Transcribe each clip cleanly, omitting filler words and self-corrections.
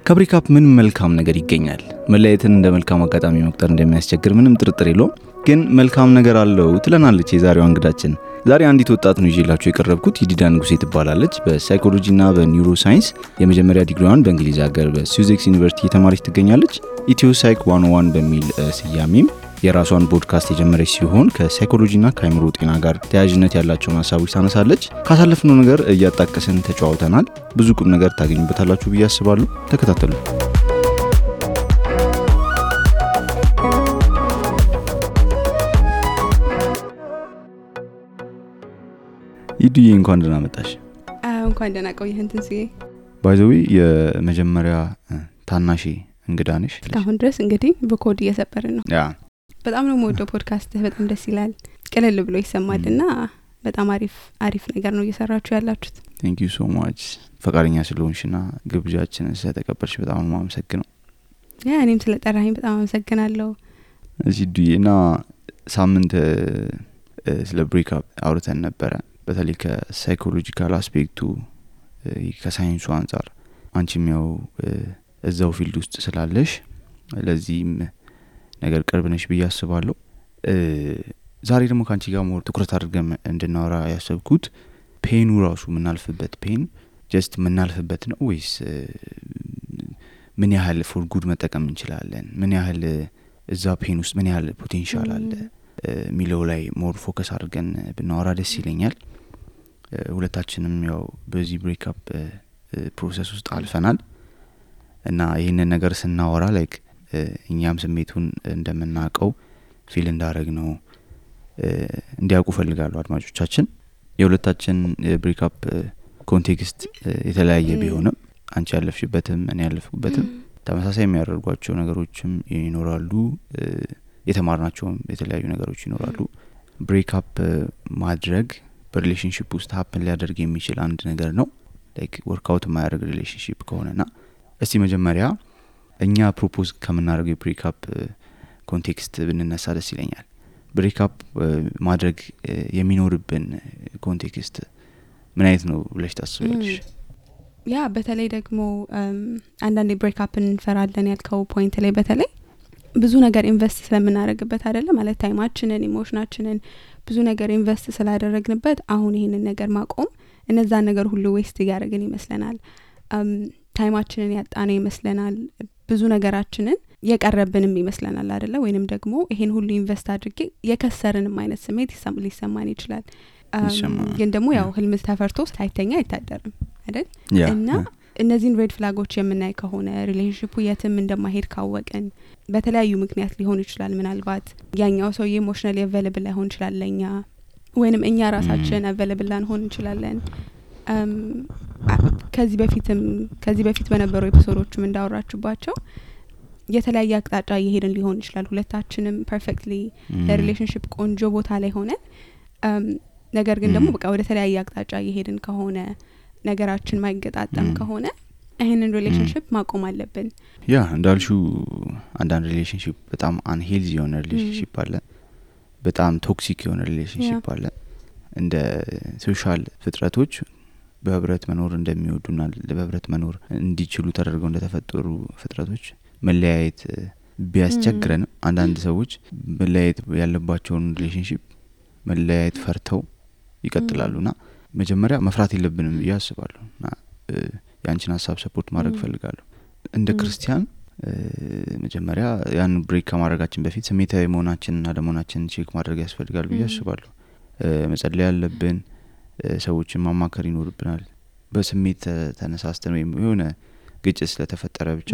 ከብሬክአፕ ምን መልካም ነገር ይገኛል? መለያየትን እንደ መልካም አጋጣሚ መቁጠር እንደሚያስቸግር ምንም ጥርጥር የለውም። ግን መልካም ነገር አለው ትለናለች የዛሬዋ እንግዳችን። ዛሬ አንዲት ወጣት ነው ይዤላችሁ የቀረብኩት። ይዲዳ ንጉሴ ትባላለች። በሳይኮሎጂና በኒውሮ ሳይንስ የመጀመሪያ ዲግሪዋን በእንግሊዝ ሀገር በሱዜክስ ዩኒቨርሲቲ የተማረች ትገኛለች። ኢትዮ ሳይክ 101 በሚል ስያሜም የራሷን ፖድካስት የጀመረች ሲሆን ከሳይኮሎጂና ከአእምሮ ጤና ጋር ተያያዥነት ያላቸውን ሀሳቦች ታነሳለች። ካሳለፍነው ነገር እያጣቀስን ተጨዋውተናል። ብዙ ቁም ነገር ታገኙበታላችሁ ብዬ አስባለሁ። ተከታተሉ። ይዲዬ እንኳን ደህና መጣሽ። እንኳን ደህና ቆየህ ትንስዬ። ባይ ዘ ዌይ የመጀመሪያ ታናሽ እንግዳ ነሽ። አሁን ድረስ እንግዲህ በኮድ እየሰበርን ነው። ያ በጣም ነው የምወደው ፖድካስት። በጣም ደስ ይላል። ቀለል ብሎ ይሰማልና በጣም አሪፍ ነገር ነው እየሰራችሁ ያላችሁት። ቴንክ ዩ ሶ ማች ፈቃደኛ ስለሆንሽና ግብዣችንን ስለተቀበልሽ በጣም ነው የማመሰግነው። ያ እኔም ስለጠራኸኝ በጣም አመሰግናለሁ። እዚህ ዱዬና ሳምንት ስለ ብሬክአፕ አውርተን ነበረ። በተለይ ከሳይኮሎጂካል አስፔክቱ ከሳይንሱ አንፃር አንቺም ያው እዛው ፊልድ ውስጥ ስላለሽ ለዚህም ነገር ቅርብ ነሽ ብዬ አስባለሁ። ዛሬ ደግሞ ካንቺ ጋር ሞር ትኩረት አድርገን እንድናወራ ያሰብኩት ፔኑ ራሱ ምናልፍበት ፔን ጀስት ምናልፍበት ነው ወይስ ምን ያህል ፎር ጉድ መጠቀም እንችላለን፣ ምን ያህል እዛ ፔን ውስጥ ምን ያህል ፖቴንሻል አለ ሚለው ላይ ሞር ፎከስ አድርገን ብናወራ ደስ ይለኛል። ሁለታችንም ያው በዚህ ብሬክአፕ ፕሮሰስ ውስጥ አልፈናል እና ይሄንን ነገር ስናወራ ላይክ እኛም ስሜቱን እንደምናቀው ፊል እንዳረግ ነው እንዲያውቁ ፈልጋለሁ አድማጮቻችን። የሁለታችን ብሬክአፕ ኮንቴክስት የተለያየ ቢሆንም አንቺ ያለፍሽበትም እኔ ያለፍኩበትም ተመሳሳይ የሚያደርጓቸው ነገሮችም ይኖራሉ፣ የተማርናቸውም የተለያዩ ነገሮች ይኖራሉ። ብሬክአፕ ማድረግ በሪሌሽንሺፕ ውስጥ ሀፕን ሊያደርግ የሚችል አንድ ነገር ነው፣ ላይክ ወርክአውት የማያደርግ ሪሌሽንሺፕ ከሆነና እስቲ መጀመሪያ እኛ ፕሮፖዝ ከምናደርገው የብሬክአፕ ኮንቴክስት ብንነሳ ደስ ይለኛል። ብሬክአፕ ማድረግ የሚኖርብን ኮንቴክስት ምን አይነት ነው ብለሽ ታስቢያለሽ? ያ በተለይ ደግሞ አንዳንዴ ብሬክአፕን እንፈራለን ያልከው ፖይንት ላይ በተለይ ብዙ ነገር ኢንቨስት ስለምናደርግበት አይደለ ማለት ታይማችንን፣ ኢሞሽናችንን ብዙ ነገር ኢንቨስት ስላደረግንበት አሁን ይሄንን ነገር ማቆም እነዛን ነገር ሁሉ ዌስት ያደርግን ይመስለናል። ታይማችንን ያጣነው ይመስለናል። ብዙ ነገራችንን የቀረብንም ይመስለናል አይደለ? ወይንም ደግሞ ይሄን ሁሉ ኢንቨስት አድርጌ የከሰርንም አይነት ስሜት ሊሰማን ይችላል። ግን ደግሞ ያው ህልም ተፈርቶ ሳይተኛ አይታደርም አይደል? እና እነዚህን ሬድ ፍላጎች የምናይ ከሆነ ሪሌሽንሺፑ የትም እንደማይሄድ ካወቅን በተለያዩ ምክንያት ሊሆን ይችላል። ምናልባት ያኛው ሰው ኢሞሽናሊ አቬለብል ላይሆን ይችላል ለኛ፣ ወይንም እኛ ራሳችን አቬለብል ላንሆን እንችላለን። ከዚህ በፊት በነበሩ ኤፒሶዶችም እንዳወራችሁባቸው የተለያየ አቅጣጫ እየሄድን ሊሆን ይችላል። ሁለታችንም ፐርፌክትሊ ለሪሌሽንሺፕ ቆንጆ ቦታ ላይ ሆነን ነገር ግን ደግሞ በቃ ወደ ተለያየ አቅጣጫ እየሄድን ከሆነ ነገራችን ማይገጣጠም ከሆነ ይሄንን ሪሌሽንሺፕ ማቆም አለብን። ያ እንዳልሽው አንዳንድ ሪሌሽንሺፕ በጣም አንሄልዚ የሆነ ሪሌሽንሺፕ አለ፣ በጣም ቶክሲክ የሆነ ሪሌሽንሺፕ አለ። እንደ ሶሻል ፍጥረቶች በህብረት መኖር እንደሚወዱና በህብረት መኖር እንዲችሉ ተደርገው እንደተፈጠሩ ፍጥረቶች መለያየት ቢያስቸግረን አንዳንድ ሰዎች መለያየት ያለባቸውን ሪሌሽንሺፕ መለያየት ፈርተው ይቀጥላሉና መጀመሪያ መፍራት የለብንም ብዬ አስባለሁና ያንቺን ሀሳብ ሰፖርት ማድረግ ፈልጋለሁ። እንደ ክርስቲያን መጀመሪያ ያን ብሬክ ከማድረጋችን በፊት ስሜታዊ መሆናችንና ደሞናችንን ቼክ ማድረግ ያስፈልጋል ብዬ አስባለሁ። መጸለይ ያለብን፣ ሰዎችን ማማከር ይኖርብናል። በስሜት ተነሳስተን ወይም የሆነ ግጭት ስለተፈጠረ ብቻ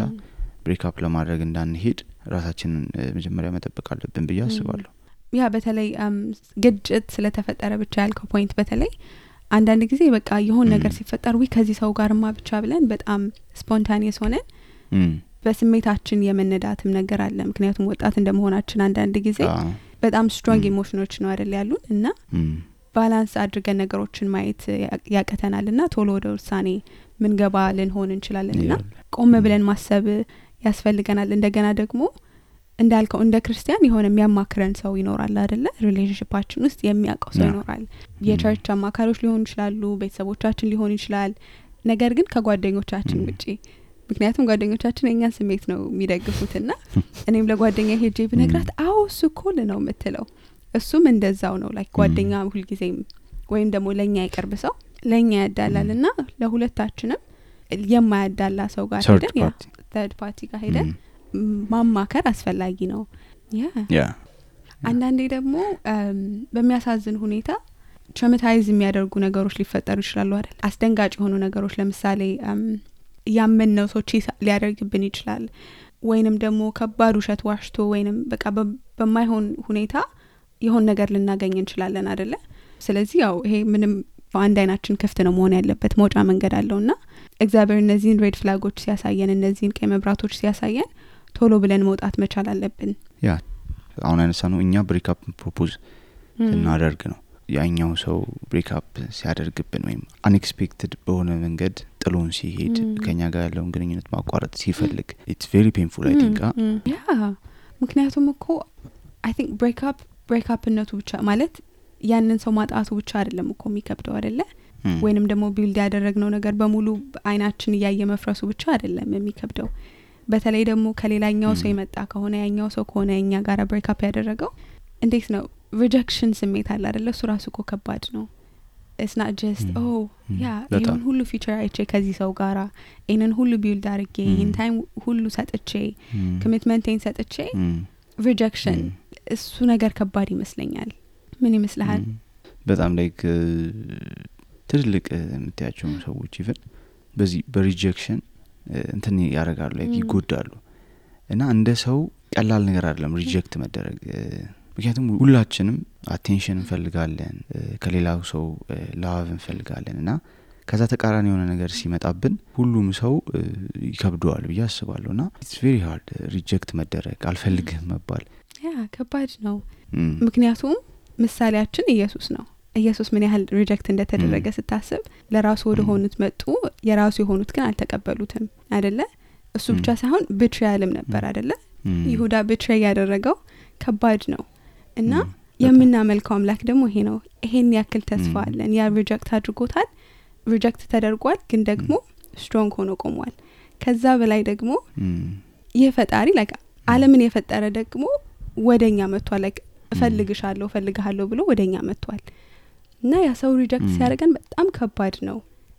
ብሬክአፕ ለማድረግ እንዳንሄድ ራሳችንን መጀመሪያ መጠበቅ አለብን ብዬ አስባለሁ። ያ በተለይ ግጭት ስለተፈጠረ ብቻ ያልከው ፖይንት በተለይ አንዳንድ ጊዜ በቃ የሆነ ነገር ሲፈጠር ከዚህ ሰው ጋርማ ብቻ ብለን በጣም ስፖንታኒየስ ሆነን በስሜታችን የመነዳትም ነገር አለ። ምክንያቱም ወጣት እንደመሆናችን አንዳንድ ጊዜ በጣም ስትሮንግ ኢሞሽኖች ነው አይደል ያሉን እና ባላንስ አድርገን ነገሮችን ማየት ያቀተናልና ቶሎ ወደ ውሳኔ ምን ገባ ልንሆን እንችላለንና ቆም ብለን ማሰብ ያስፈልገናል። እንደገና ደግሞ እንዳልከው እንደ ክርስቲያን የሆነ የሚያማክረን ሰው ይኖራል አይደለ? ሪሌሽንሺፓችን ውስጥ የሚያውቀው ሰው ይኖራል። የቸርች አማካሪዎች ሊሆኑ ይችላሉ፣ ቤተሰቦቻችን ሊሆኑ ይችላል። ነገር ግን ከጓደኞቻችን ውጪ ምክንያቱም ጓደኞቻችን የኛን ስሜት ነው የሚደግፉትና እኔም ለጓደኛ ሄጄ ብነግራት አዎ እሱ ኮል ነው የምትለው እሱም እንደዛው ነው ላይክ ጓደኛ ሁልጊዜም ወይም ደግሞ ለኛ ይቀርብ ሰው ለኛ ያዳላልና ለሁለታችንም የማያዳላ ሰው ጋር ሄደን ያ third party ጋር ሄደን ማማከር አስፈላጊ ነው። ያ አንዳንዴ ደግሞ በሚያሳዝን ሁኔታ ትራውማታይዝ የሚያደርጉ ነገሮች ሊፈጠሩ ይችላሉ አይደል? አስደንጋጭ የሆኑ ነገሮች ለምሳሌ ያመነው ሰው ሊያደርግብን ይችላል ወይንም ደግሞ ከባድ ውሸት ዋሽቶ ወይንም በቃ በማይሆን ሁኔታ የሆነ ነገር ልናገኝ እንችላለን አይደለ? ስለዚህ ያው ይሄ ምንም በአንድ አይናችን ክፍት ነው መሆን ያለበት መውጫ መንገድ አለውና እግዚአብሔር እነዚህን ሬድ ፍላጎች ሲያሳየን እነዚህን ቀይ መብራቶች ሲያሳየን ቶሎ ብለን መውጣት መቻል አለብን። ያ አሁን አነሳነው እኛ ብሬክአፕ ፕሮፖዝ እናደርግ ነው ያኛው ሰው ብሬክአፕ ሲያደርግብን ወይም አንኤክስፔክትድ በሆነ መንገድ ጥሎን ሲሄድ ከኛ ጋር ያለውን ግንኙነት ማቋረጥ ሲፈልግ it's very painful I think ያ ምክንያቱም እኮ I think ብሬክአፕነቱ ብቻ ማለት ያንን ሰው ማጣቱ ብቻ አይደለም እኮ የሚከብደው አይደለ? ወይንም ደግሞ ቢልድ ያደረግነው ነገር በሙሉ አይናችን ያየ መፍረሱ ብቻ አይደለም የሚከብደው። በተለይ ደግሞ ከሌላኛው ሰው የመጣ ከሆነ ያኛው ሰው ከሆነ እኛ ጋር ብሬክአፕ ያደረገው እንዴት ነው ሪጀክሽን ስሜት አለ አይደለ? እሱ ራሱ እኮ ከባድ ነው። it's not just ይሄን ሁሉ ፊቸር አይቼ ከዚህ ሰው ጋራ ይሄንን ሁሉ ቢልድ አድርጌ ይሄን ታይም ሁሉ ሰጥቼ ኮሚትመንቴን ሰጥቼ ሪጀክሽን እሱ ነገር ከባድ ይመስለኛል። ምን ይመስልሃል? በጣም ላይክ ትልቅ የምትያቸው ሰዎች ይፈን በዚህ በሪጀክሽን እንትን ያረጋሉ ላይክ ይጎዳሉ እና እንደ ሰው ቀላል ነገር አይደለም ሪጀክት መደረግ። ምክንያቱም ሁላችንም አቴንሽን እንፈልጋለን ከሌላው ሰው ላቭ እንፈልጋለን እና ከዛ ተቃራኒ የሆነ ነገር ሲመጣብን ሁሉም ሰው ይከብደዋል ብዬ አስባለሁና it's very hard ሪጀክት መደረግ አልፈልግም መባል ያ ከባድ ነው። ምክንያቱም ምሳሌያችን ኢየሱስ ነው። ኢየሱስ ምን ያህል ሪጀክት እንደተደረገ ስታስብ ለራሱ ወደ ሆኑት መጡ የራሱ የሆኑት ግን አልተቀበሉትም አይደለ? እሱ ብቻ ሳይሆን ቢትራያልም ነበር አይደለ? ይሁዳ ቢትራይ ያደረገው ከባድ ነው እና የምናመልከው አምላክ ደግሞ ይሄ ነው። ይሄን ያክል ተስፋ አለን። ያ ሪጀክት አድርጎታል ሪጀክት ተደርጓል ግን ደግሞ ስትሮንግ ሆኖ ቆሟል። ከዛ በላይ ደግሞ ይሄ ፈጣሪ ላይክ ዓለምን የፈጠረ ደግሞ ወደኛ መጥቷል። ላይክ እፈልግሃለሁ ብሎ ወደኛ መጥቷል እና ያ ሰው ሪጀክት ሲያደርገን በጣም ከባድ ነው።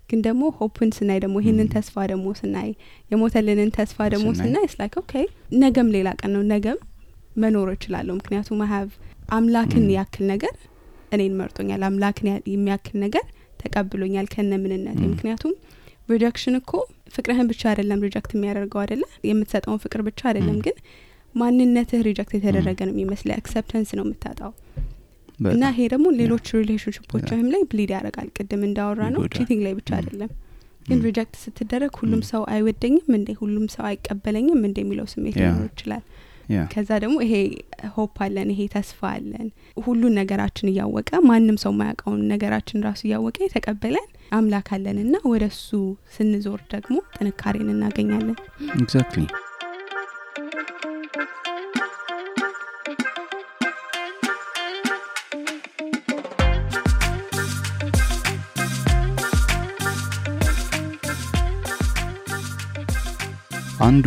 ግን ደግሞ ሆፕን ስናይ ደግሞ ይሄንን ተስፋ ደግሞ ስናይ የሞተልንን ተስፋ ደግሞ ስናይ it's like okay ነገም ሌላ ቀን ነው ነገም መኖር እችላለሁ ምክንያቱም I have አምላክን ያክል ነገር እኔን መርጦኛል አምላክን የሚያክል ነገር ተቀብሎኛል ከነምንነቴ። ምክንያቱም ሪጀክሽን እኮ ፍቅርህን ብቻ አይደለም ሪጀክት የሚያደርገው አይደለ? የምትሰጠውን ፍቅር ብቻ አይደለም ግን ማንነትህ ሪጀክት የተደረገ ነው የሚመስለው አክሰፕታንስ ነው የምታጣው። እና ይሄ ደግሞ ሌሎች ሪሌሽንሺፖችም ላይ ብሊድ ያደርጋል። ቅድም እንዳወራ ነው ቺቲንግ ላይ ብቻ አይደለም ግን ሪጀክት ስትደረግ ሁሉም ሰው አይወደኝም እንዴ ሁሉም ሰው አይቀበለኝም እንዴ የሚለው ስሜት ሊኖር ይችላል። ከዛ ደግሞ ይሄ ሆፕ አለን ይሄ ተስፋ አለን ሁሉን ነገራችን እያወቀ ማንም ሰው ማያውቀውን ነገራችን ራሱ እያወቀ የተቀበለን አምላክ አለንና ወደሱ ስንዞር ደግሞ ጥንካሬን እናገኛለን። ኤግዛክትሊ አንዱ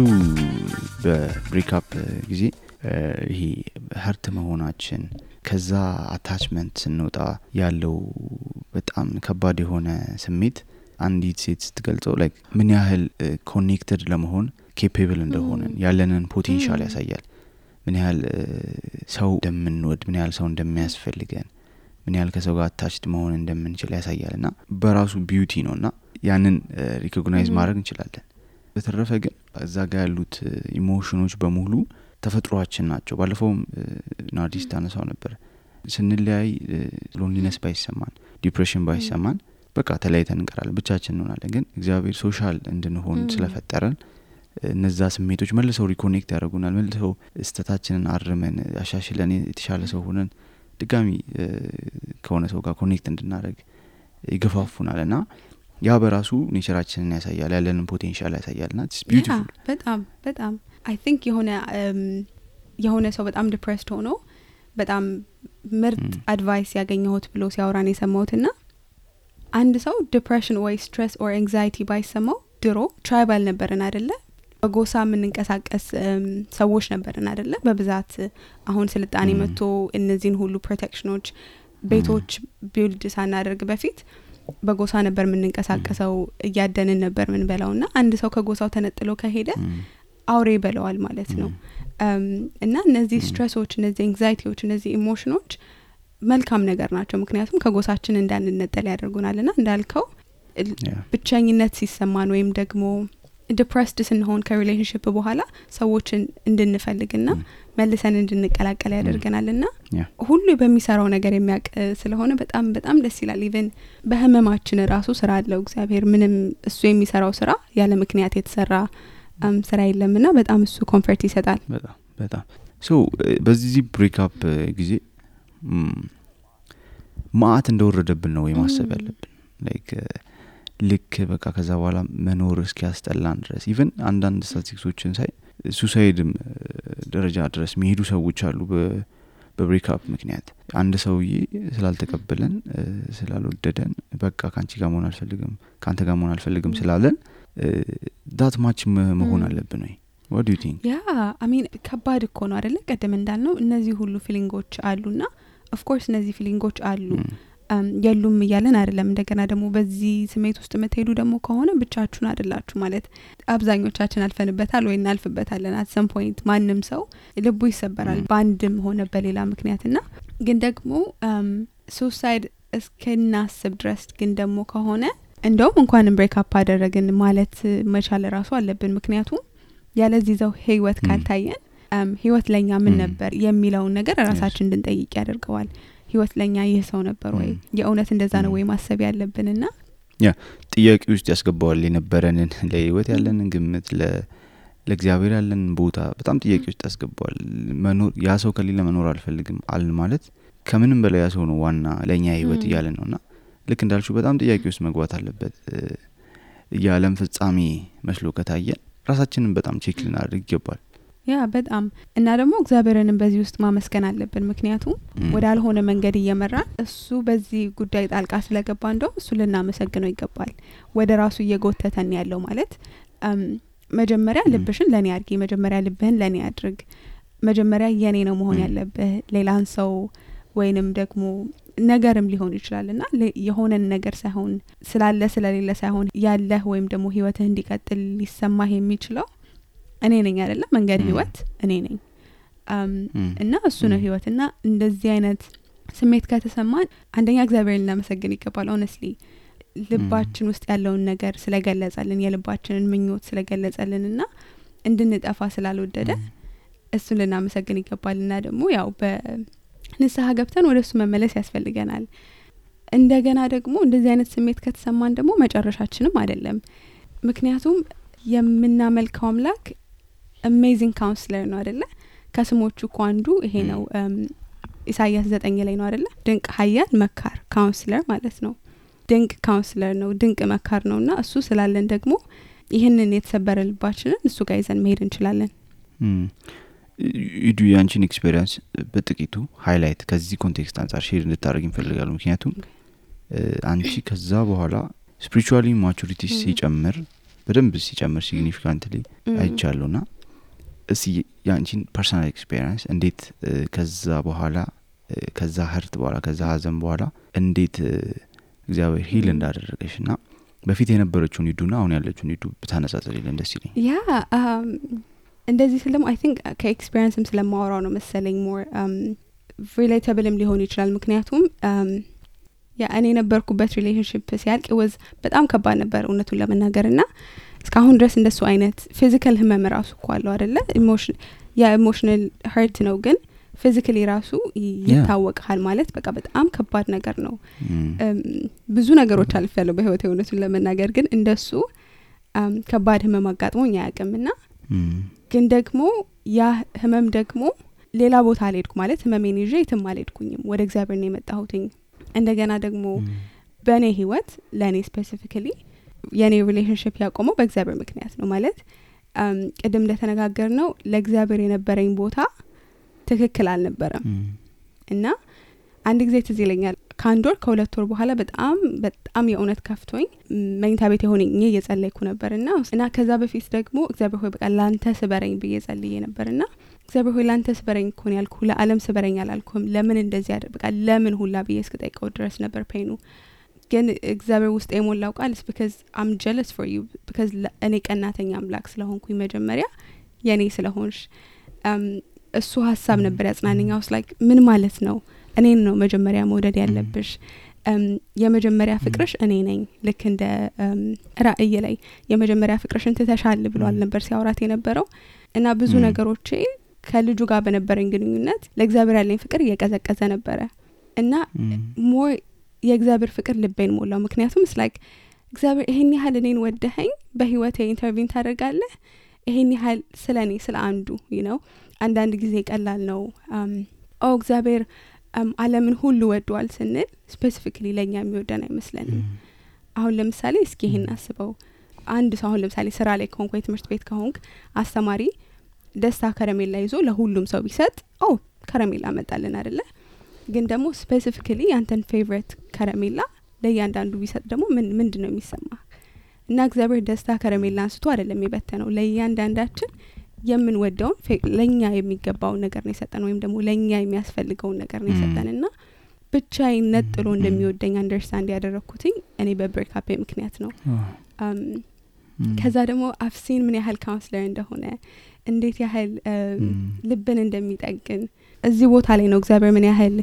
በብሬክአፕ ጊዜ ይሄ ሀርት መሆናችን ከዛ አታችመንት ስንወጣ ያለው በጣም ከባድ የሆነ ስሜት አንዲት ሴት ስትገልጸው ላይክ ምን ያህል ኮኔክትድ ለመሆን ኬፔብል እንደሆነ ያለንን ፖቴንሻል ያሳያል። ምን ያህል ሰው እንደምንወድ ምን ያህል ሰው እንደሚያስፈልገን ምን ያህል ከሰው ጋር አታችድ መሆን እንደምንችል ያሳያልና በራሱ ቢዩቲ ነውና ያንን ሪኮግናይዝ ማድረግ እንችላለን። በተረፈ ግን እዛ ጋር ያሉት ኢሞሽኖች በሙሉ ተፈጥሯችን ናቸው። ባለፈውም ናርዲስ ታነሳው ነበር ስንለያይ ሎንሊነስ ባይሰማን ዲፕሬሽን ባይሰማን በቃ ተለያይተን እንቀራለን ብቻችን እንሆናለን። ግን እግዚአብሔር ሶሻል እንድንሆን ስለፈጠረን እነዛ ስሜቶች መልሰው ሪኮኔክት ያደርጉናል። መልሰው እስተታችንን አርመን አሻሽለን የተሻለ ሰው ሆነን ድጋሚ ከሆነ ሰው ጋር ኮኔክት እንድናደርግ ይገፋፉናልና ያ በራሱ ኔቸራችንን ያሳያል ያለንን ፖቴንሻል ያሳያልና it's beautiful። በጣም I think የሆነ የሆነ ሰው በጣም ዲፕሬስድ ሆኖ በጣም ምርጥ አድቫይስ ያገኘሁት ብሎ ሲያወራን የሰማሁትና አንድ ሰው ዲፕሬሽን ወይ ስትሬስ ኦር አንግዛይቲ ባይሰማው ድሮ ትራይባል ነበርን አይደለ በጎሳ የምንንቀሳቀስ ሰዎች ነበርን አይደለ በብዛት አሁን ስልጣኔ መጥቶ እነዚህን ሁሉ ፕሮቴክሽኖች ቤቶች ቢልድ ሳናደርግ በፊት በጎሳ ነበር የምንንቀሳቀሰው እያደንን ነበር ምን በላውና አንድ ሰው ከጎሳው ተነጥሎ ከሄደ አውሬ በለዋል ማለት ነው እና እነዚህ ስትሬሶች እነዚህ አንግዛይቲዎች እነዚህ ኢሞሽኖች መልካም ነገር ናቸው ምክንያቱም ከጎሳችን እንዳንነጠል ያደርጉናልና እንዳልከው ብቻኝነት ሲሰማን ወይም ደግሞ ዲፕሬስድ ስንሆን ከሪሌሽንሺፕ በኋላ ሰዎችን እንድንፈልግና መልሰን እንድንቀላቀል ያደርገናልና ሁሉ በሚሰራው ነገር የሚያቅ ስለሆነ በጣም በጣም ደስ ይላል ኢቭን በህመማችን ራሱ ስራ አለው እግዚአብሔር ምንም እሱ የሚሰራው ስራ ያለ ምክንያት የተሰራ ስራ የለምና በጣም እሱ ኮምፎርት ይሰጣል በጣም ሶ በዚህ ብሬክ አፕ ጊዜ ማአት እንደወረደብን ነው የማሰብ ያለብን ላይክ ልክ በቃ ከዛ በኋላ መኖር እስኪያስጠላን ድረስ ኢቭን አንዳንድ ስታቲስቲክሶችን ሳይ ሱሳይድም ደረጃ ድረስ የሚሄዱ ሰዎች አሉ በብሬክ አፕ ምክንያት አንድ ሰውዬ ስላልተቀበለን ስላልወደደን በቃ ካንቺ ጋር መሆን አልፈልግም ካንተ ጋር መሆን አልፈልግም ስላለን ዳት ማች መሆን አለብን ወይ what do you think I mean ከባድ እኮ ነው አይደለ ቀደም እንዳልነው እነዚህ ሁሉ ፊሊንጎች አሉና of course እነዚህ ፊሊንጎች አሉ የሉም ይያለን አይደለም እንደገና ደግሞ በዚህ ስሜት ውስጥ መተሄዱ ደግሞ ከሆነ ብቻችሁን አይደላችሁ ማለት አብዛኞቻችን አልፈንበታል ወይ እናልፍበታለን at some point ማንንም ሰው ልቡ ይሰበራል ባንድም ሆነ በሌላ ምክንያትና ግን ደግሞ suicide እስከናስብ ድረስ ግን ደግሞ ከሆነ እንደውም እንኳን ብሬክ አፕ አደረግን ማለት መቻል ራሱ አለብን ምክንያቱም ያለዚህ ዘው ህይወት ካልታየን ህይወት ለኛ ምን ነበር የሚለውን ነገር ራሳችን እንድንጠይቅ ያደርገዋል ህይወት ለኛ ይህ ሰው ነበር ወይ የእውነት እንደዛ ነው ወይ ማሰብ ያለብንና ጥያቄ ውስጥ ያስገባዋል የነበረንን ለህይወት ያለንን ግምት ለእግዚአብሔር ያለንን ቦታ በጣም ጥያቄ ውስጥ ያስገባዋል መኖር ያ ሰው ከሌለ መኖር አልፈልግም አል ማለት ከምንም በላይ ያ ሰው ነው ዋና ለኛ ህይወት ይያለ ነውና ልክ እንዳልሽው በጣም ጥያቄ ውስጥ መግባት አለበት የዓለም ፍጻሜ መስሎ ከታየን ራሳችንን በጣም ቼክ ልናደርግ ይገባል በጣም እና ደግሞ እግዚአብሔርንም በዚህ ውስጥ ማመስገን አለብን ምክንያቱም ወዳልሆነ መንገድ እየመራን እሱ በዚህ ጉዳይ ጣልቃ ስለገባ እንደው እሱ ልናመሰግነው ይገባል ወደ ራሱ እየጎተተን ያለው ማለት መጀመሪያ ልብሽን ለኔ አድርጊ መጀመሪያ ልብህን ለኔ አድርግ መጀመሪያ የኔ ነው መሆን ያለበት ሌላን ሰው ወይንም ደግሞ ነገርም ሊሆን ይችላልና የሆነን ነገር ሳይሆን ስላለ ስለሌለ ሳይሆን ያለህ ወይም ደግሞ ህይወትህ እንዲቀጥል ሊሰማህ የሚችለው እኔ ነኝ አይደለም መንገድ ህይወት እኔ ነኝ እና እሱ ነው ህይወትና እንደዚህ አይነት ስሜት ከተሰማን አንደኛ እግዚአብሔርን ለማመስገን ይገባል honestly ልባችን ውስጥ ያለውን ነገር ስለገለጸልን የልባችንን ምኞት ስለገለጸልንና እንድንጠፋ ስላልወደደ እሱን ልናመሰግን ይገባልና ደግሞ ያው በንስሐ ገብተን ወደሱ መመለስ ያስፈልገናል እንደገና ደግሞ እንደዚህ አይነት ስሜት ከተሰማን ደግሞ መጨረሻችንም አይደለም ምክንያቱም የምናመልከው አምላክ amazing counselor ነው አይደለ ከስሞቹ አንዱ ይሄ ነው ኢሳይያስ 9 ላይ ነው አይደለ ድንቅ ኃያል መካር counselor ማለት ነው ድንቅ counselor ነው ድንቅ መካር ነውና እሱ ስላለን ደግሞ ይሄንን የተሰበረ ልባችንን እሱ ጋር ይዘን መሄድ እንችላለን ይዱ ያንቺን ኤክስፒሪየንስ በጥቂቱ ሃይላይት ከዚህ ኮንቴክስት አንፃር ሼር እንድታደርግ እንፈልጋለን ምክንያቱም አንቺ ከዛ በኋላ ስፒሪቹዋሊ ማቹሪቲ ሲጨምር በደንብ ሲጨምር ሲግኒፊካንትሊ አይቻለውና እሺ ያንቺን ፐርሰናል ኤክስፒሪየንስ እንዴት ከዛ በኋላ ከዛ ህርት በኋላ ከዛ ሀዘን በኋላ እንዴት እግዚአብሔር ሂል እንዳደረገሽና በፊት የነበረችውን ይዱና አሁን ያለችውን ይዱ በታነጻጽሪልን ደስ ይለኝ እንደዚህ ስለማ I think ከኤክስፒሪየንስም ስለማወራው ነው መሰለኝ more relatable ሊሆን ይችላል ምክንያቱም እኔ ነበርኩበት ሪሌሽንሺፕ ሲያልቅ was በጣም ከባድ ነበር እውነቱን ለመናገርና እስካሁን ድረስ እንደሱ አይነት ፊዚካል ህመም ራሱ ቋለው አይደለ ኢሞሽናል hurt ነው ግን ፊዚካሊ ራሱ ይታወቃል ማለት በቃ በጣም ከባድ ነገር ነው ብዙ ነገሮች አልፈለው በህይወቴ እውነቱን ለመናገር ግን እንደሱ ከባድ ህመም አጋጥሞኝ አያውቅምና ግን ደግሞ ያ ህመም ደግሞ ሌላ ቦታ አልሄድኩ ማለት ህመሜን ይዤ የትም አልሄድኩኝም ወደ እግዚአብሔር ነው የመጣሁትኝ እንደገና ደግሞ በኔ ህይወት ለኔ ስፔሲፊካሊ የኔ ሪሌሽንሺፕ ያቆመው በእግዚአብሔር ምክንያት ነው ማለት ቅድም እንደተነጋገርነው ለእግዚአብሔር የነበረኝ ቦታ ትክክል አልነበረም እና አንድ ጊዜ ትዝ ይለኛል ከአንድ ወር ከሁለት ወር በኋላ በጣም የእውነት ከፍቶኝ መኝታ ቤት ሆኜ እየጸለይኩ ነበርና ከዛ በፊት ደግሞ እግዚአብሔር ሆይ በቃ ላንተ ስበረኝ ብዬ ጸልዬ ነበርና እግዚአብሔር ሆይ ላንተ ስበረኝ እኮ ነው ያልኩ ለዓለም ስበረኝ አላልኩም ለምን እንደዚህ በቃ ለምን ሁላ ብዬ እስክጠይቀው ድረስ ነበር ፔኑ ግን እግዚአብሔር ውስጥ የሞላው ቃል because I'm jealous for you because እኔ ቀናተኛ አምላክ ስለሆንኩኝ መጀመሪያ የኔ ስለሆንሽ እሱ ሐሳብ ነበር ያጽናነኝ I was like ምን ማለት ነው እኔን ነው መጀመሪያ መውደድ ያለብሽ የመጀመሪያ ፍቅርሽ እኔ ነኝ ልክ እንደ ራእይ ላይ የመጀመሪያ ፍቅርሽን ትተሻል ብሏል ነበር ሲያወራት የነበረው እና ብዙ ነገሮቼ ከልጁ ጋር በነበረኝ ግንኙነት ለእግዚአብሔር ያለኝ ፍቅር እየቀዘቀዘ ነበረ እና ሞር የእግዚአብሔር ፍቅር ልቤን ሞላው ምክንያቱም like እግዚአብሔር ይሄን ያህል እኔን ወደኸኝ በህይወቴ ኢንተርቪው ታደርጋለህ ይሄን ያህል ስለኔ ስለ አንዱ አንዳንድ ጊዜ ቀላል ነው እግዚአብሔር ዓለምን ሁሉ ወዷል ስንል ስፔሲፊካሊ ለኛ የሚወደን አይመስለንም አሁን ለምሳሌ እስኪ ይሄን አስበው አንድ ሰው አሁን ለምሳሌ ስራ ላይ ከሆንኩ ትምህርት ቤት ከሆንክ አስተማሪ ደስታ ከረሜላ ይዞ ለሁሉም ሰው ቢሰጥ ከረሜላ መጣልን አይደለ ግን ደግሞ ስፔሲፊካሊ ያንተን ፌቨሪት ከረሜላ ለያንዳንዱ ቢሰጥ ደግሞ ምንድነው የሚሰማ እና እግዚአብሔር ደስታ ከረሜላ አንስቶ አይደለም የበተነው ለያንዳንዳችን የምንወደውን ለኛ የሚገባው ነገር ነው የሰጠን ወይም ደግሞ ለኛ የሚያስፈልገውን ነገር ነው የሰጠንና ብቻዬን ነጥሎ እንደሚወደኝ አንደርስታንድ ያደረኩትኝ እኔ በብሬክአፕ ምክንያት ነው ከዛ ደግሞ አፍሲን ምን ያህል ካውንስለር እንደሆነ እንዴት ያህል ልብን እንደሚጠግን እዚህ ቦታ ላይ ነው እግዚአብሔር ምን ያህል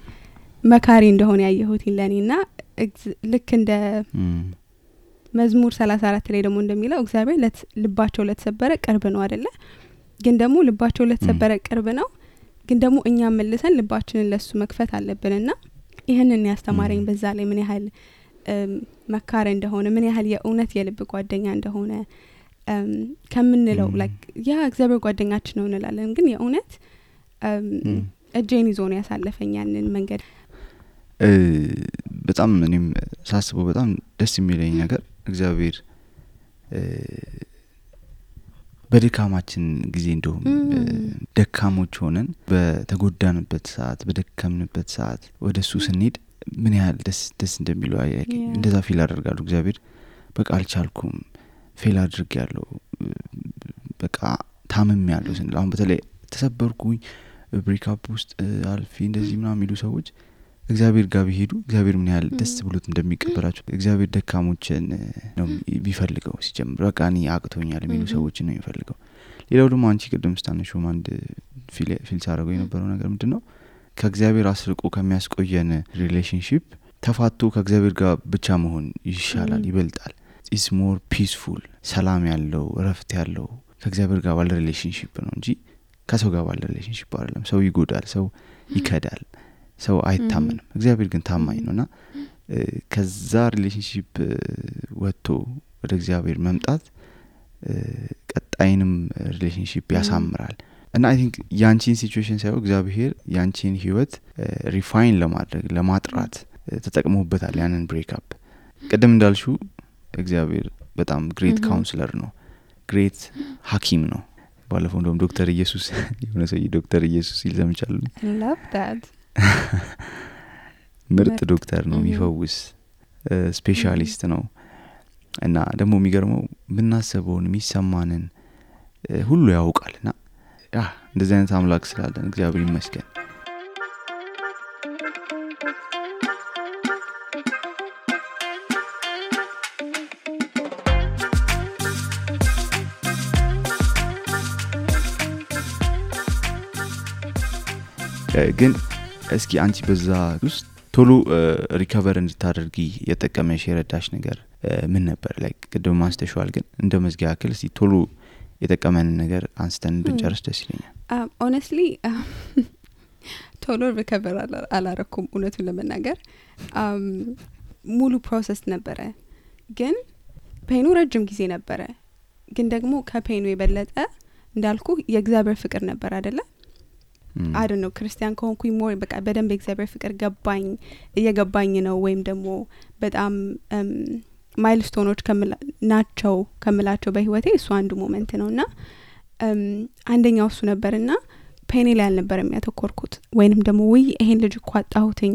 መካሪ እንደሆነ ያየሁት ለኔና ልክ እንደ መዝሙር 34 ላይ ደግሞ እንደሚለው እግዚአብሔር ልባቸው ለተሰበረ ቅርብ ነው አይደለ ግን ደግሞ ልባቸው ለተሰበረ ቅርብ ነው ግን ደግሞ እኛ መልሰን ልባችንን ለሱ መክፈት አለብንና ይሄንን ያስተማረኝ በዛ ላይ ምን ያህል መካሪ እንደሆነ ምን ያህል የእውነት የልብ ጓደኛ እንደሆነ ከምንለው like ያ እግዚአብሔር ጓደኛችን ነው እንላለን ግን የእውነት እጄን ይዞ ነው ያሳለፈኝ ያንን መንገድ በጣም እኔም ሳስበው በጣም ደስ የሚለኝ ነገር እግዚአብሔር በድካማችን ጊዜ እንደውም ደካሞች ሆነን በተጎዳንበት ሰዓት በደከምንበት ሰዓት ወደሱ ስንሄድ ምን ያህል ደስ እንደሚለው እንደዛ ፊል አደርጋለሁ እግዚአብሔር በቃ አልቻልኩም ፌል አድርጌያለሁ በቃ ታምሜያለሁ ስንል አሁን በተለይ ተሰበርኩኝ ብሬክአፕ ውስጥ አልፌ እንደዚህ ምናምን የሚሉ ሰዎች እግዚአብሔር ጋር ቢሄዱ እግዚአብሔር ምን ያህል ደስ ብሎት እንደሚቀበላቸው እግዚአብሔር ደካሞችን ነው ቢፈልገው ሲጀምር በቃ እኔ አቅቶኛል የሚሉ ሰዎች ነው የሚፈልገው ሌላው ደግሞ አንቺ ቅድም ስታነሺው አንድ ፊል ሳረገው የነበረው ነገር ምንድነው ከእግዚአብሔር አስርቆ ከሚያስቆየን ሪሌሽንሺፕ ተፋቶ ከእግዚአብሔር ጋር ብቻ መሆን ይሻላል ይበልጣል is more peaceful ሰላም ያለው ረፍት ያለው ከእግዚአብሔር ጋር ባለ ሪሌሽንሺፕ ነው እንጂ ከሰው ጋር ባለ ሪሌሽንሺፕ አይደለም ሰው ይጎዳል ሰው ይከዳል ሰው አይታመንም እግዚአብሔር ግን ታማኝ ነውና ከዛ ሪሌሽንሺፕ ወጥቶ ወደ እግዚአብሔር መምጣት ቀጣይንም ሪሌሽንሺፕ ያሳምራል እና I think ያንቺን ሲቹዌሽን ሳይሆን እግዚአብሔር ያንቺን ህይወት ሪፋይን ለማድረግ ለማጥራት ተጠቅሞበታል ያንን ብሬክአፕ ቀደም እንዳልሽው እግዚአብሔር በጣም ግሬት ካውንስለር ነው ግሬት ሐኪም ነው ባለፈው እንደውም ዶክተር ኢየሱስ የሆነ ሰው ዶክተር ኢየሱስ ይልዘምቻሉ I love that ምርጥ ዶክተር ነው የሚፈውስ ስፔሻሊስት ነው እና ደግሞ የሚገርመው ምናሰበውን የሚሰማንን ሁሉ ያውቃልና እንደዚህ አይነት አምላክ ስላለን እግዚአብሔር ይመስገን ግን እስኪ አንቺ በዛ ውስጥ ቶሎ ሪከቨር እንድታደርጊ የተጠቀመሽ የረዳሽ ነገር ምን ነበር like ቅድም ማስተሽዋል ግን እንደ መዝጊያ ያክል እስቲ ቶሎ የተጠቀመን ነገር አንስተን ብንጨርስ ደስ ይለኛል honestly ቶሎ ሪከቨር አላረኩም እውነቱን ለመናገር ሙሉ ፕሮሰስ ነበረ ግን ፔኑ ረጅም ጊዜ ነበረ ግን ደግሞ ከፔኑ የበለጠ እንዳልኩ የእግዚአብሔር ፍቅር ነበር አይደለ I don't know ክርስቲያን ከሆንኩኝ ሞር በቃ በደንብ እግዚአብሔር ፍቅር እየገባኝ ነው ወይም ደግሞ በጣም ማይልስቶኖች ከምላቸው በህይወቴ እሱ አንዱ ሞመንት ነውና አንደኛው እሱ ነበርና ፔኔ ላይ አልነበረም ያተኮርኩት ወይንም ደግሞ ወይ ይሄን ልጅ እኮ አጣሁትኝ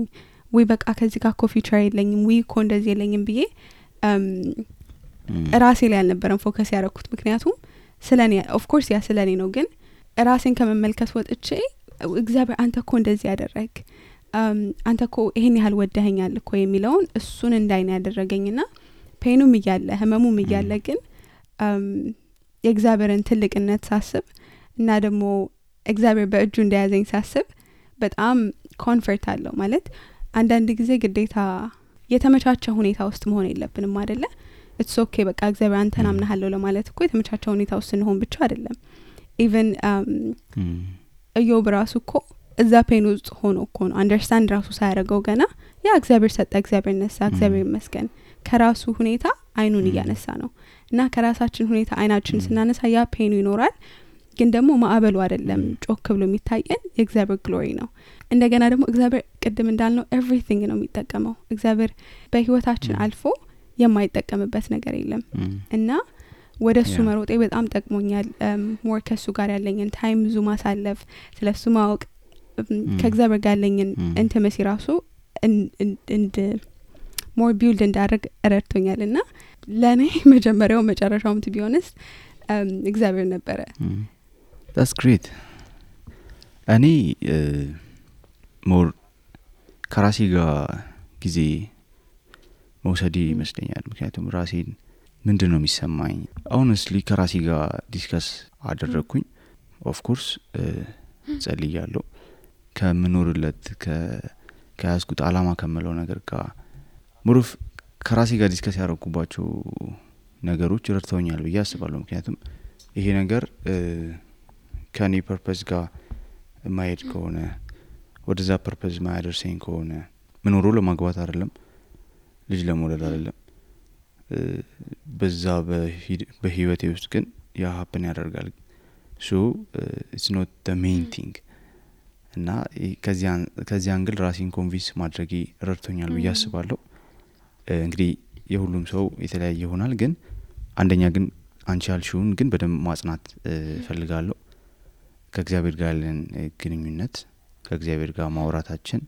ወይ በቃ ከዚህ ጋር እኮ ፊቸር የለኝም ወይ እኮ እንደዚህ የለኝም ብዬ ራሴ ላይ አልነበረም ፎከስ ያደረኩት ምክንያቱም ስለኔ ኦፍ ኮርስ ያ ስለኔ ነው ግን ራሴን ከመመልከት ወጥቼ እግዚአብሔር አንተ እኮ እንደዚህ ያደረግ አንተ እኮ ይሄን ያህል ወደኸኛል እኮ የሚለውን እሱን እንዳይና ያደረገኝና ፔኑም እያለ ህመሙም እያለ ግን የእግዚአብሔርን ትልቅነት ሳስብ እና ደግሞ እግዚአብሔር በእጁ እንደያዘኝ ሳስብ በጣም ኮንፈርት አለው ማለት አንዳንድ ጊዜ ግዴታ የተመቻቸ ሁኔታ ውስጥ መሆን የለብንም አይደለ ኢትስ ኦኬ በቃ እግዚአብሔር አንተን አምናለሁ ለማለት እኮ የተመቻቸ ሁኔታ ውስጥ እንሆን ብቻ አይደለም ኢቭን ኢዮብ ራሱ እኮ እዛ ፔን ውስጥ ሆኖ እኮ ነው አንደርስታንድ ራሱ ሳያደርገው ገና ያ እግዚአብሔር ሰጠ እግዚአብሔር ነሳ እግዚአብሔር ይመስገን ከራሱ ሁኔታ አይኑን እያነሳ ነው እና ከራሳችን ሁኔታ አይናችን ስናነሳ ያ ፔኑ ይኖራል ግን ደግሞ ማዕበሉ አይደለም ጮክ ብሎ የሚታየን የእግዚአብሔር ግሎሪ ነው እንደገና ደግሞ እግዚአብሔር ቅድም እንዳልነው ኤቭሪቲንግ ነው የሚጠቀመው እግዚአብሔር በህይወታችን አልፎ የማይጠቀምበት ነገር የለም እና ወደሱ መሮጤ በጣም ጠቅሞኛል ሞር ከሱ ጋር ያለኝን ታይም ብዙ ማሳለፍ ስለሱ ማወቅ ከእግዚአብሔር ጋር ያለኝን ኢንቲመሲ ራሱ እንድ ሞር ቢልድ እንዳደርግ ረድቶኛልና ለኔ መጀመሪያው መጨረሻውም to be honest እግዚአብሔር ነበረ that's great እኔ ሞር ከራሴ ጋር ጊዜ መውሰድ ይመስለኛል ምክንያቱም ራሴን ምንድነው የሚሰማኝ honestly ከራሴ ጋር ዲስከስ አደረኩኝ of course ጸልያለሁ ከምኖርለት ከያዝኩት አላማ ከመለው ነገር ጋር ሙሩፍ ከራሴ ጋር ዲስከስ ያደረኩባቸው ነገሮች ረድተውኛል ብዬ አስባለሁ ምክንያቱም ይሄ ነገር ከኔ ፐርፐዝ ጋር ማይድ ከሆነ ወደዛ ፐርፐዝ ማያደርሰኝ ከሆነ ምኖሮ ለማግባት አይደለም ልጅ ለመውለድ አይደለም በዛ በህይወቴ ውስጥ ግን ያ ሀፕን ያደርጋል so it's not the main thing እና ከዚህ አንግል ራሴን ኮንቪንስ ማድረግ ረድቶኛል ብዬ አስባለሁ እንግዲህ የሁሉም ሰው የተለያየ ይሆናል ግን አንደኛ ግን አንቺ ያልሽውን ግን በደንብ ማጽናት ፈልጋለሁ ከእግዚአብሔር ጋር ያለን ግንኙነት ከእግዚአብሔር ጋር ማውራታችን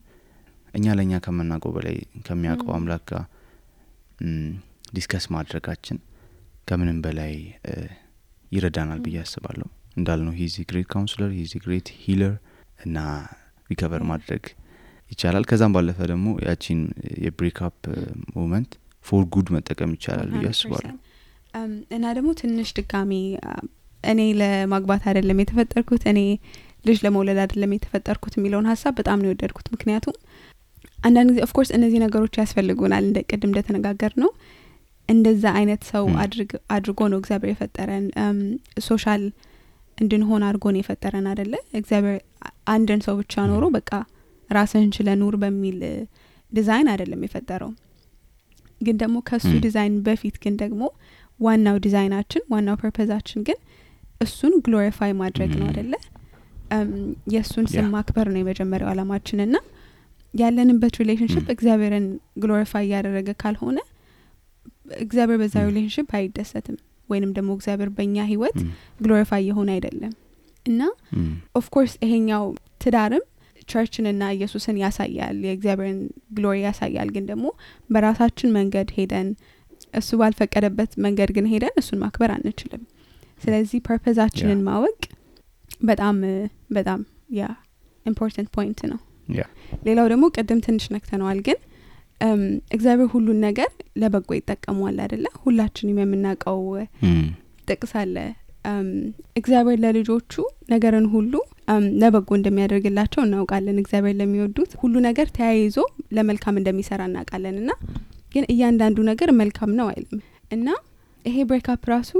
እኛ ለኛ ከመናቀው በላይ ከሚያውቀው አምላክ ጋር ዲስከስ ማድረጋችን ከምንም በላይ ይረዳናል ብዬ አስባለሁ እንዳልነው he is a great counselor he is a great healer እና ሪከቨር ማድረግ ይቻላል ከዛም ባለፈ ደግሞ ያቺን የብሬክ አፕ ሞመንት ፎር ጉድ መጠቀም ይቻላል ብዬ አስባለሁ እና ደግሞ ትንሽ ድጋሚ እኔ ለማግባት አይደለም የተፈጠርኩት እኔ ልጅ ለመውለድ አይደለም የተፈጠርኩት የሚለውን ሐሳብ በጣም ነው የወደድኩት ምክንያቱም አንዳንድ ጊዜ ኦፍ ኮርስ እነዚህ ነገሮች ያስፈልጉናል እንደ ቅድም እንደተነጋገር ነው እንደዛ አይነት ሰው አድርጎ ነው እግዚአብሔር የፈጠረን ሶሻል እንድንሆን አድርጎ ነው የፈጠረን አይደለ እግዚአብሔር አንድን ሰው ብቻ ኖሮ በቃ ራስህን ችለህ ኑር በሚል ዲዛይን አይደለም የፈጠረው ግን ደግሞ ከሱ ዲዛይን በፊት ግን ደግሞ ዋናው ዲዛይናችን ዋናው ፐርፐዛችን ግን እሱን ግሎሪፋይ ማድረግ ነው አይደለ የሱን ስም ማክበር ነው የመጀመሪያው አላማችንና ያለንበት ሪሌሽንሺፕ እግዚአብሔርን ግሎሪፋይ ያደረገ ካልሆነ እግዚአብሔር በዛ ሪሌሽንሺፕ አይደሰትም ወይንም ደግሞ እግዚአብሔር በእኛ ህይወት ግሎሪፋይ የሆነ አይደለም እና ኦፍ ኮርስ ይሄኛው ትዳርም ቸርችንና ኢየሱስን ያሳያል የእግዚአብሔርን ግሎሪ ያሳያል ግን ደግሞ በራሳችን መንገድ ሄደን እሱ ባልፈቀደበት መንገድ ግን ሄደን እሱን ማክበር አንችልም ስለዚህ ፐርፐዛችንን ማወቅ በጣም በጣም ያ ኢምፖርታንት ፖይንት ነው ሌላው ደግሞ ቀደም ትንሽ ነክተነዋል ግን እግዚአብሔር ሁሉን ነገር ለበጎ ይጠቀማል አይደለ ሁላችንም የምናውቀው ጥቅስ አለ እግዚአብሔር ለልጆቹ ነገርን ሁሉ ለበጎ እንደሚያደርግላቸው እናውቃለን እግዚአብሔር ለሚወዱት ሁሉ ነገር ተያይዞ ለመልካም እንደሚሰራ እናውቃለንና ግን እያንዳንዱ ነገር መልካም ነው አይልም እና ይሄ ብሬክ አፕ ራሱ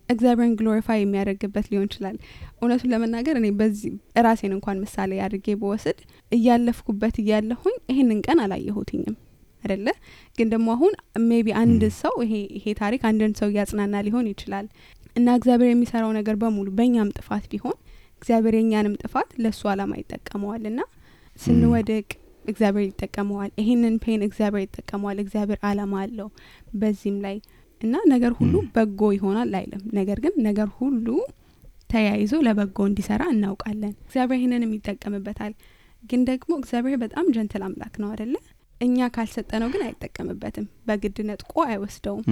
እግዚአብሔርን ግሎሪፋይ የሚያደርግበት ሊሆን ይችላል እውነቱን ለመናገር እኔ በዚህ ራሴን እንኳን ምሳሌ አድርጌ በወስድ እያለፍኩበት እያለሁኝ ይሄንን ቀን አላየሁትኝም አይደለ ግን ደግሞ አሁን ሜቢ አንድ ሰው ይሄ ታሪክ አንድን ሰው ያጽናና ሊሆን ይችላል እና እግዚአብሔር የሚሰራው ነገር በሙሉ በእኛም ጥፋት ቢሆን እግዚአብሔር የኛንም ጥፋት ለሱ አላማ ይጠቀመዋልና ስንወድቅ እግዚአብሔር ይጠቀመዋል ይሄንን ፔን እግዚአብሔር ይጠቀመዋል እግዚአብሔር አላማ አለው በዚህም ላይ እና ነገር ሁሉ በጎ ይሆናል አይልም ነገር ግን ነገር ሁሉ ተያይዞ ለበጎ እንዲሰራ እናውቃለን። እግዚአብሔር ይሄንንም ይጠቀምበታል። ግን ደግሞ እግዚአብሔር በጣም ጀንትል አምላክ ነው አይደለ? እኛ ካልሰጠነው ግን አይጠቀምበትም፣ በግድ ነጥቆ አይወስደውም።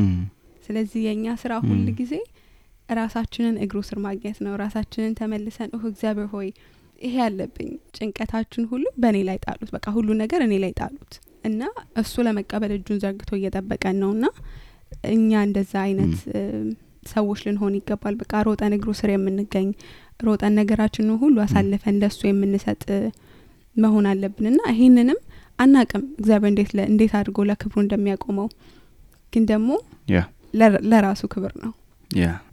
ስለዚህ የኛ ስራ ሁሉ ጊዜ ራሳችንን እግሩ ስር ማግኘት ነው። ራሳችንን ተመልሰን እግዚአብሔር ሆይ ይሄ ያለብኝ ጭንቀታችን ሁሉ በእኔ ላይ ጣሉት፣ በቃ ሁሉ ነገር እኔ ላይ ጣሉት እና እሱ ለመቀበል እጁን ዘርግቶ እየጠበቀን ነውና እኛ እንደዛ አይነት ሰዎች ልንሆን ይገባል። በቃ ሮጠን እግሩ ስር የምንገኝ ሮጠን ነገራችንን ሁሉ አሳልፈን ለሱ የምንሰጥ መሆን አለብንና ይሄንንም አናቅም እግዚአብሔር እንዴት አድርጎ ለክብሩ እንደሚያቆመው፣ ግን ደግሞ ለራሱ ክብር ነው።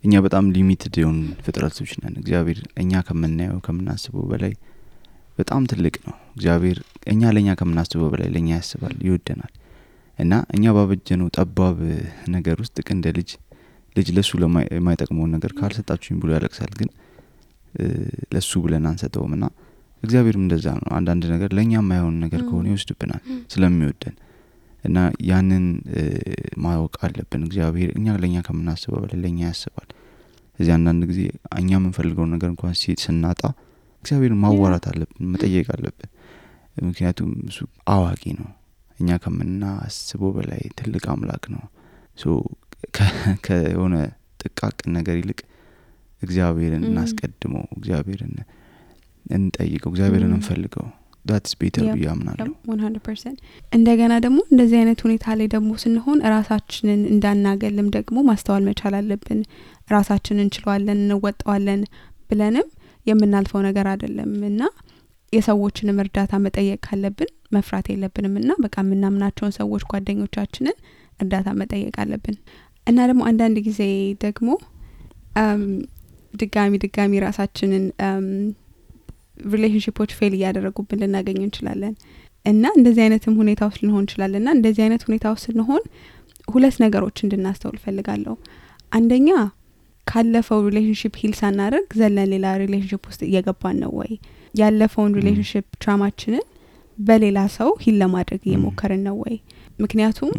እኛ በጣም ሊሚትድ የሆኑ ፍጥረቶች ነን። እግዚአብሔር እኛ ከምናየው ከምናስበው በላይ በጣም ትልቅ ነው። እግዚአብሔር እኛ ለኛ ከምናስበው በላይ ለኛ ያስባል፣ ይወደናል። እና እኛ ባበጀነው ጠባብ ነገር ውስጥ እንደ ልጅ ለሱ ለማይጠቅመው ነገር ካልሰጣችሁኝ ብሎ ያለቅሳል። ግን ለሱ ብለን አንሰጠውምና እግዚአብሔርም እንደዛ ነው። አንዳንድ ነገር ለኛ የማይሆን ነገር ከሆነ ይወስድብናል ስለሚወደን እና ያንን ማወቅ አለብን። እግዚአብሔር እኛ ለኛ ከምናስበው በላይ ለኛ ያስባል። እዚህ አንዳንድ ጊዜ እኛ የምንፈልገው ነገር እንኳን ስናጣ እግዚአብሔርን ማዋራት አለብን፣ መጠየቅ አለብን። ምክንያቱም እሱ አዋቂ ነው። እኛ ከምናስበው በላይ ትልቅ አምላክ ነው። ከሆነ ጥቃቅን ነገር ይልቅ እግዚአብሔርን እናስቀድመው፣ እግዚአብሔርን እንጠይቀው፣ እግዚአብሔርን እንፈልገው። that's better ብዬ አምናለሁ 100%። እንደገና ደግሞ እንደዚህ አይነት ሁኔታ ላይ ደግሞ ስንሆን ራሳችንን እንዳናገልም ደግሞ ማስተዋል መቻል አለብን። ራሳችንን እንችላለን እንወጣዋለን ብለንም የምናልፈው ነገር አይደለምና የሰዎችንም እርዳታ መጠየቅ ካለብን መፍራት የለብንምና በቃ የምናምናቸውን ሰዎች ጓደኞቻችንን እርዳታ መጠየቅ አለብን። እና ደግሞ አንዳንድ ጊዜ ደግሞ ድጋሚ ራሳችንን ሪሌሽንሺፖች ፌል እያደረጉብን ልናገኝ እንችላለን። እና እንደዚህ አይነትም ሁኔታ ውስጥ ልንሆን እንችላለንና እንደዚህ አይነት ሁኔታ ውስጥ ስንሆን ሁለት ነገሮች እንድናስተውል ፈልጋለሁ። አንደኛ ካለፈው ሪሌሽንሺፕ ሂል ሳናደርግ ዘለን ሌላ ሪሌሽንሺፕ ውስጥ እየገባን ነው ወይ? ያለፈውን ሪሌሽንሺፕ ትራማችንን በሌላ ሰው ሂል ለማድረግ እየሞከርን ነው ወይ? ምክንያቱም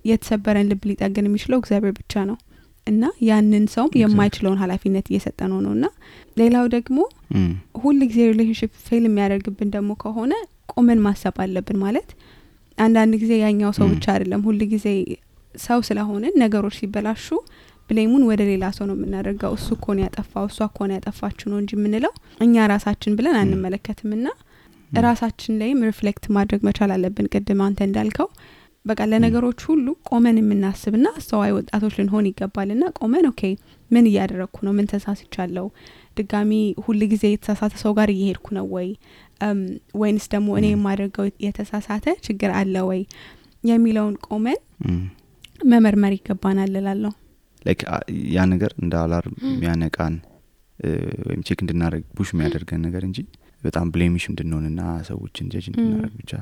የተሰበረን ልብ ሊጠግን የሚችለው እግዚአብሔር ብቻ ነው እና ያንን ሰው የማይችለውን ኃላፊነት እየሰጠነው ነውና ሌላው ደግሞ ሁሉ ጊዜ ሪሌሽንሺፕ ፌል የሚያደርግብን ደግሞ ከሆነ ቆመን ማሰብ አለብን። ማለት አንዳንድ ጊዜ ያኛው ሰው ብቻ አይደለም፣ ሁሉ ጊዜ ሰው ስለሆነ ነገሮች ሲበላሹ ብሌሙን ወደ ሌላ ሰው ነው የምናደርገው። እሱ እኮ ነው ያጠፋው፣ እሷ እኮ ነው ያጠፋችሁ ነው እንጂ የምንለው እኛ ራሳችን ብለን አንመለከትምና ራሳችን ላይም ሪፍሌክት ማድረግ መቻል አለብን። ቅድም አንተ እንዳልከው በቃ ለነገሮች ሁሉ ቆመን የምናስብና አስተዋይ ወጣቶች ልንሆን ይገባልና ቆመን ኦኬ ምን እያደረኩ ነው? ምን ተሳስቻለሁ? ድጋሚ ሁሉ ጊዜ የተሳሳተ ሰው ጋር እየሄድኩ ነው ወይ? ወይንስ ደግሞ እኔ የማደርገው የተሳሳተ ችግር አለ ወይ የሚለውን ቆመን መመርመር ይገባናል እላለሁ። ላይክ ያ ነገር እንደ አላርም የሚያነቃን ወይም ቼክ እንድናደርግ ፑሽ የሚያደርገን ነገር እንጂ በጣም ብሌሚሽ እንድንሆንና ሰዎችን ጀጅ እንድናደርግ ብቻ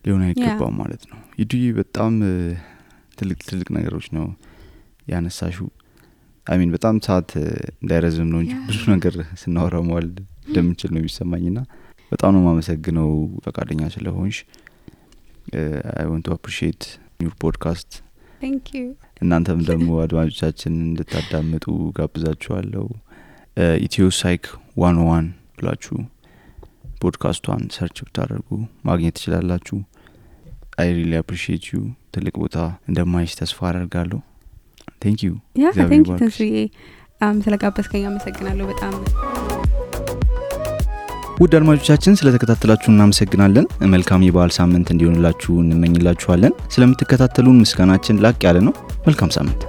ሊሆን አይገባም ማለት ነው። ይዱይ በጣም ትልቅ ነገሮች ነው ያነሳሽው። አሚን በጣም ሰዓት እንዳይረዝም ነው እንጂ ብዙ ነገር ስናወራው ማለት እንደምንችል ነው የሚሰማኝና በጣም ነው ማመሰግነው ፈቃደኛ ስለሆንሽ። I want to appreciate your podcast. Thank you. እናንተም ደግሞ አድማጮቻችን እንድታዳምጡ ጋብዛችኋለሁ። ኢትዮ ሳይክ 101 ብላችሁ ፖድካስቷን ሰርች ብታደርጉ ማግኘት ትችላላችሁ። I really appreciate you። ትልቅ ቦታ እንደማይሽ ተስፋ አደርጋለሁ። Thank you. Yeah, thank you ተስፋዬ ስለጋበዝከኝ አመሰግናለሁ በጣም። ውድ አድማጮቻችን ስለተከታተላችሁ እናመሰግናለን። መልካም የበዓል ሳምንት እንዲሆንላችሁ እንመኝላችኋለን። ስለምትከታተሉን ምስጋናችን ላቅ ያለ ነው። መልካም ሳምንት።